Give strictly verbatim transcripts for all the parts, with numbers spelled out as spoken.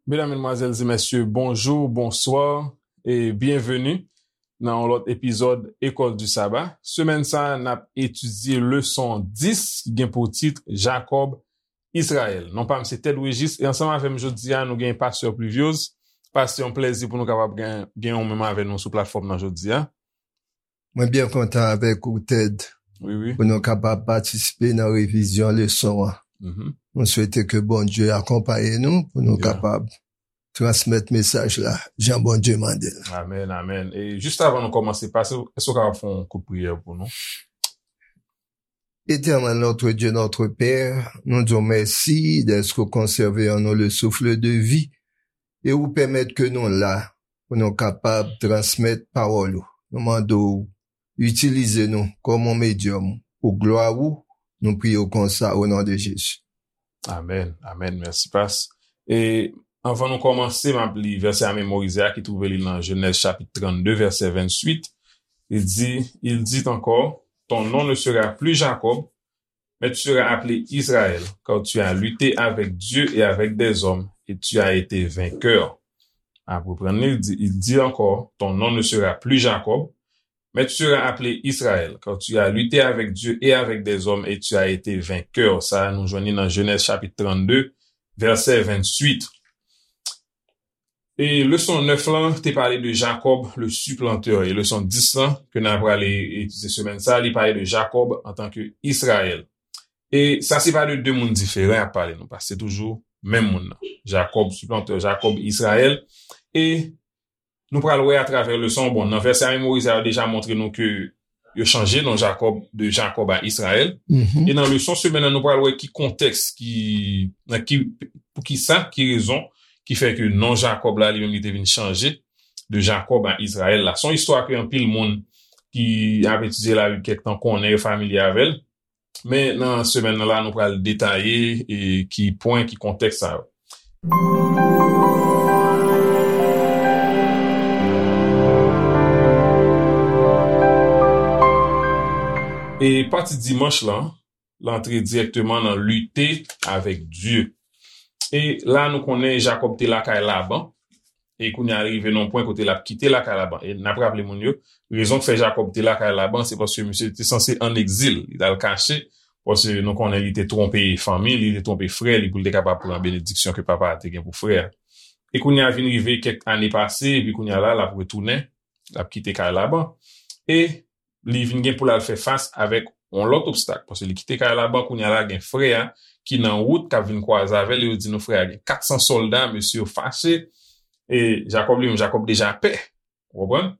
Medam, medmwazèl e mesye, bonjou, bonswa e byenveni nan yon lòt epizòd École du Sabbat. Semèn sa a, n ap etidye leson dis ki gen pou tit Jakòb, Izrayèl. Non pa m se Ted Régis e ansanm avè m jodi a, nou gen Pastè Pluviose. Pastè, yon plèzi pou nou kapab gen, gen yon menm avè nou sou platfòm nan jodi a. Mwen byen kontan avèk ou, Ted, Wi, wi. pou nou kapab patisipe nan revizyon leson an. Mhm. Nou swete ke Bondye akonpaye nou pou nou Yeah. kapab transmèt mesaj la jan Bondye mande l. Amèn, amèn. E jis avan nou kòmanse, Pastè, èske w kapab fè yon kout priyè pou nou? Éternel notre Dieu, notre Père, nou di w mèsi dèske w konsève an nou le souffle de vie e ou pèmèt ke nou la pou nou kapab transmèt pawòl ou. Nou mande w itilize nou kòm yon medyòm pou glwa ou. Nou priye w konsa o non de Jezi. Amèn, amèn. Mèsi, Pas. E anvan nou kòmanse, m ap li vèsè a memorize a ki twouve li nan Jenèz chapit trannde, vèsè venntuit. Il dit, il dit encore, ton nom ne sera plus Jacob, mais tu seras appelé Israël, car tu as lutté avec Dieu et avec des hommes, et tu as été vainqueur. Ap reprann li, il dit, il dit encore, ton nom ne sera plus Jacob, mais tu seras appelé Israël, car tu as lutté avec Dieu et avec des hommes, et tu as été vainqueur. Sa a, nou jwenn li nan Jenèz chapit trannde, vèsè venntuit. E leson nèf lan te pale de Jacob, le supplanteur. E leson dis lan, ke n a prale etidye semèn sa a, li pale de Jacob antanke Izrayèl. E sa se pa de de moun diferan y ap pale, non, paske se toujou menm moun nan. Jacob, supplanteur, Jacob, Izrayèl. E nou pral wè atravè leson, bon, nan vèsè a memorize a, yo deja montre nou ke yo chanje non Jacob de Jacob a Israël. Mhm. E nan leson semèn nan, nou pral wè ki kontèks, ki, nan ki, pou ki sa, ki rezon ki fè ke non Jacob la, li menm, li te vin chanje de Jacob a Israël la. Se yon istwa ke anpil moun ki ap etidye Labib kèk tan konnen, yo familye avè l. Men nan semèn nan la, nou pral detaye e ki pwen, ki kontèks sa yo. E pati dimanch lan, l antre dirèkteman nan lite avèk Dye. E la, nou konnen Jakòb te lakay Laban. E kounye a, li rive nan yon pwen kote l ap kite lakay Laban. E n ap raple moun yo, rezon k fè Jakòb te lakay Laban, se paske misye te sanse ann egzil. Li t al kache, paske nou konnen li te twonpe fanmi li, li te twonpe frè li pou l te kapab pran benediksyon ke papa a te gen pou frè a. E kounye a vin rive kèk ane pase, epi kounye a la, l ap retounen, l ap kite kay Laban. E li vin gen pou l al fè fas avèk yon lòt obstak, paske li kite kay Laban, kounye a la gen frè a ki nan wout k ap vin kwaze avè l, e yo di nou frè a gen katsan sòlda, mesye yo fache, e Jakòb li menm, Jakòb deja pè, ou konprann?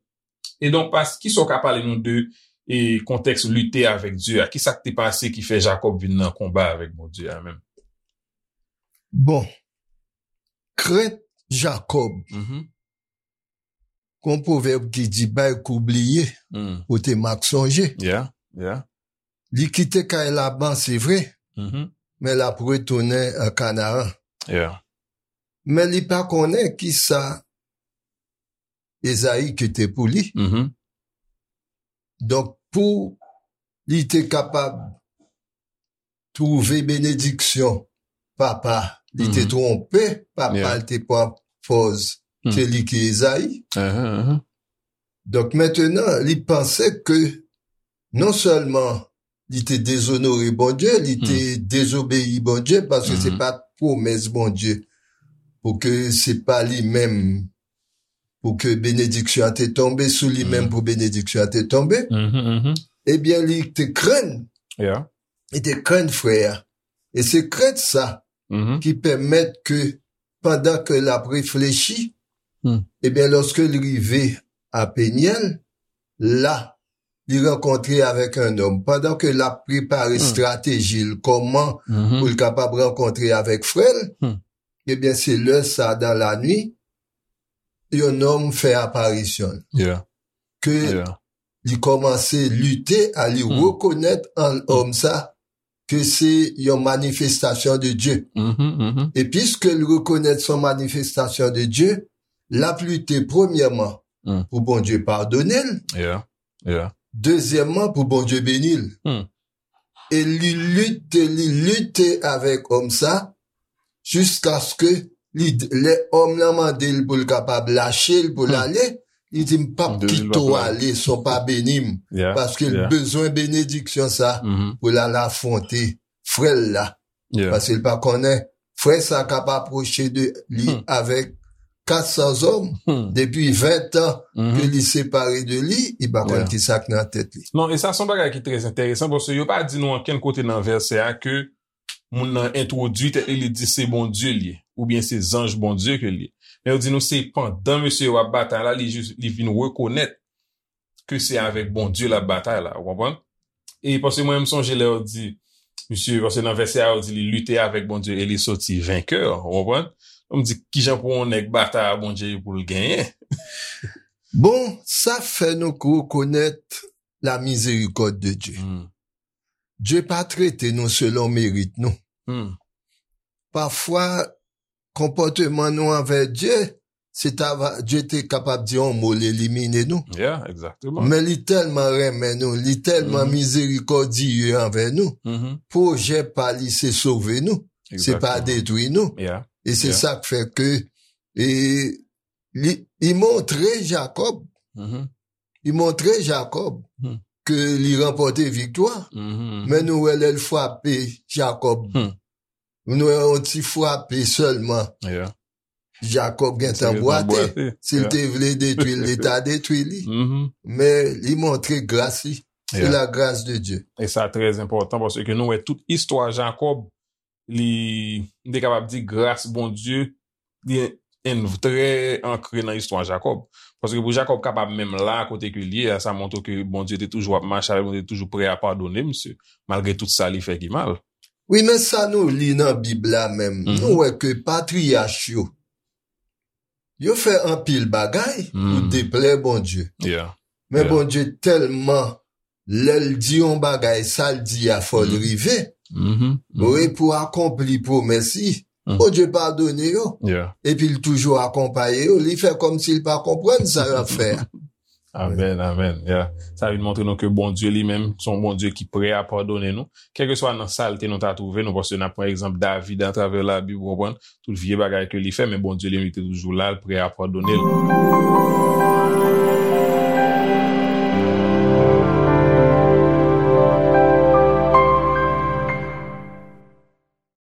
E donk, pas, kisa w ka pale nou de, e, kontèks lite avèk Dye a? Kisa k te pase ki fè Jakòb vin nan konba avèk Bondye a menm? Bon, krent Jakòb, Mhm. gon pwovèb ki di, bay kou bliye, Mm. pote mak sonje. Yeah, yeah. Li kite kay Laban, se vre, Mhm. men l ap retounen an Kanaran. Yeah. Men li pa konnen kisa Ezayi kite pou li. Mhm. Donk, pou li te kapab twouve benediksyon papa, li te Mhm. twonpe papa, Yeah. li te pran pòz Hmm. ke li ki Ezayi. Uh-huh, uh-huh. Donk, mentenan, li panse ke non sèlman li te dezonore Bondye, li te Hmm. dezobeyi Bondye, paske se Hmm. pa t pwomès Bondye pou ke se pa li menm, pou ke benediksyon an te tonbe sou li menm, Hmm. pou benediksyon an te tonbe. Mhm, mhm. Ebyen, li te krenn, Yeah. li te krenn frè a. E se krent sa Mhm. ki pèmèt ke, pandan ke l ap reflechi, Hmm. ebyen, lòske l rive a Penyèl, la, li rankontre avèk yon nonm. Pandan ke l ap prepare Hmm. estrateji l, kòman Mhm. pou l kapab rankontre avèk frè l, Hmm. ebyen, se lè sa, dan lanwit, yon nonm fè aparisyon l. Yeah. Ke Yeah. li kòmanse lite a li Hmm. rekonèt an Hmm. òm sa, ke se yon manifestasyon de Dye. Mhm, mhm. E piske l rekonèt se yon manifestasyon de Dye, l ap lite premyèman Hmm. pou Bondye padone l, Yeah, yeah. dezyèmman pou Bondye beni l. Hmm. E li lite, li lite avèk òm sa, jiskaske Li, lè òm lan mande l pou l kapab lache l, pou l ale, li di, "M p ap kite w ale san w pa beni m." Paske l bezwen benediksyon sa pou l al afwonte frè l la. Paske l pa konnen frè sa k ap apwoche de li avèk kat san zòm depi ven tan ke li separe de li, li pa konn ki sa k nan tèt li. Non, e sa se yon bagay ki trè enteresan, paske yo pa di nou ankenn kote nan vèsè a ke moun nan entwodui tèt li, li di se Bondye li ye, oubyen se zanj Bondye ke li ye. Men yo di nou se pandan mesye yo ap batay la, li jis, li vin rekonèt ke se avèk Bondye l ap batay la, ou konprann? E paske mwen, m sonje lè yo di, misye, paske nan vèsè a, yo di li lite avèk Bondye e li soti venkè, ou konprann? M di, kijan pou yon nèg batay a Bondye pou l genyen? Bon, sa fè nou rekonèt la mizerikòd de Dye. Dye pa trete nou selon merit nou. Pafwa, konpòteman nou anvè Dye, se ta va, Dye te kapab di yon mo, l elimine nou. Men li tèlman renmen nou, li tèlman mizerikòdye anvè nou, pwojè pa li se sove nou, se pa detwi nou. E se sa k fè ke, e, li, li montre Jakòb, li montre Jakòb ke li ranpòte viktwa. Men nou wè lè l frape Jakòb, nou wè yon ti frape sèlman. Jakòb gentan bwate. Si l te vle detwi l, li ta detwi li. Men li montre gras li. Se la gras de Dye. E sa trè enpòtan paske nou wè tout istwa Jakòb, li, m te kapab di gras Bondye, li en, trè ankre nan istwa Jakòb. Paske pou Jakòb kapab menm la kote ke l ye a, sa montre ke Bondye te toujou ap mache avè l, Bondye te toujou prè a padone misye, malgre tout sa li fè ki mal. Wi, men sa nou li nan Bib la menm, nou wè ke patriyach yo, yo fè anpil bagay pou deplè Bondye. Men Bondye tèlman, lè l di yon bagay, sa l di a fò l rive. Wi, pou akonpli pwomès li. Bondye padone yo. Epi l toujou akonpaye yo. Li fè kòmsi l pa konprann sa y ap fè a. Amèn, amèn. Sa vin montre nou ke Bondye li menm, se yon Bondye ki prè a padone nou. Kèlkeswa nan salte nou ta twouve nou, paske n ap pran egzanp David atravè Labib, ou konprann? Tout vye bagay ke li fè, men Bondye li menm, li te toujou la, l prè a padone l.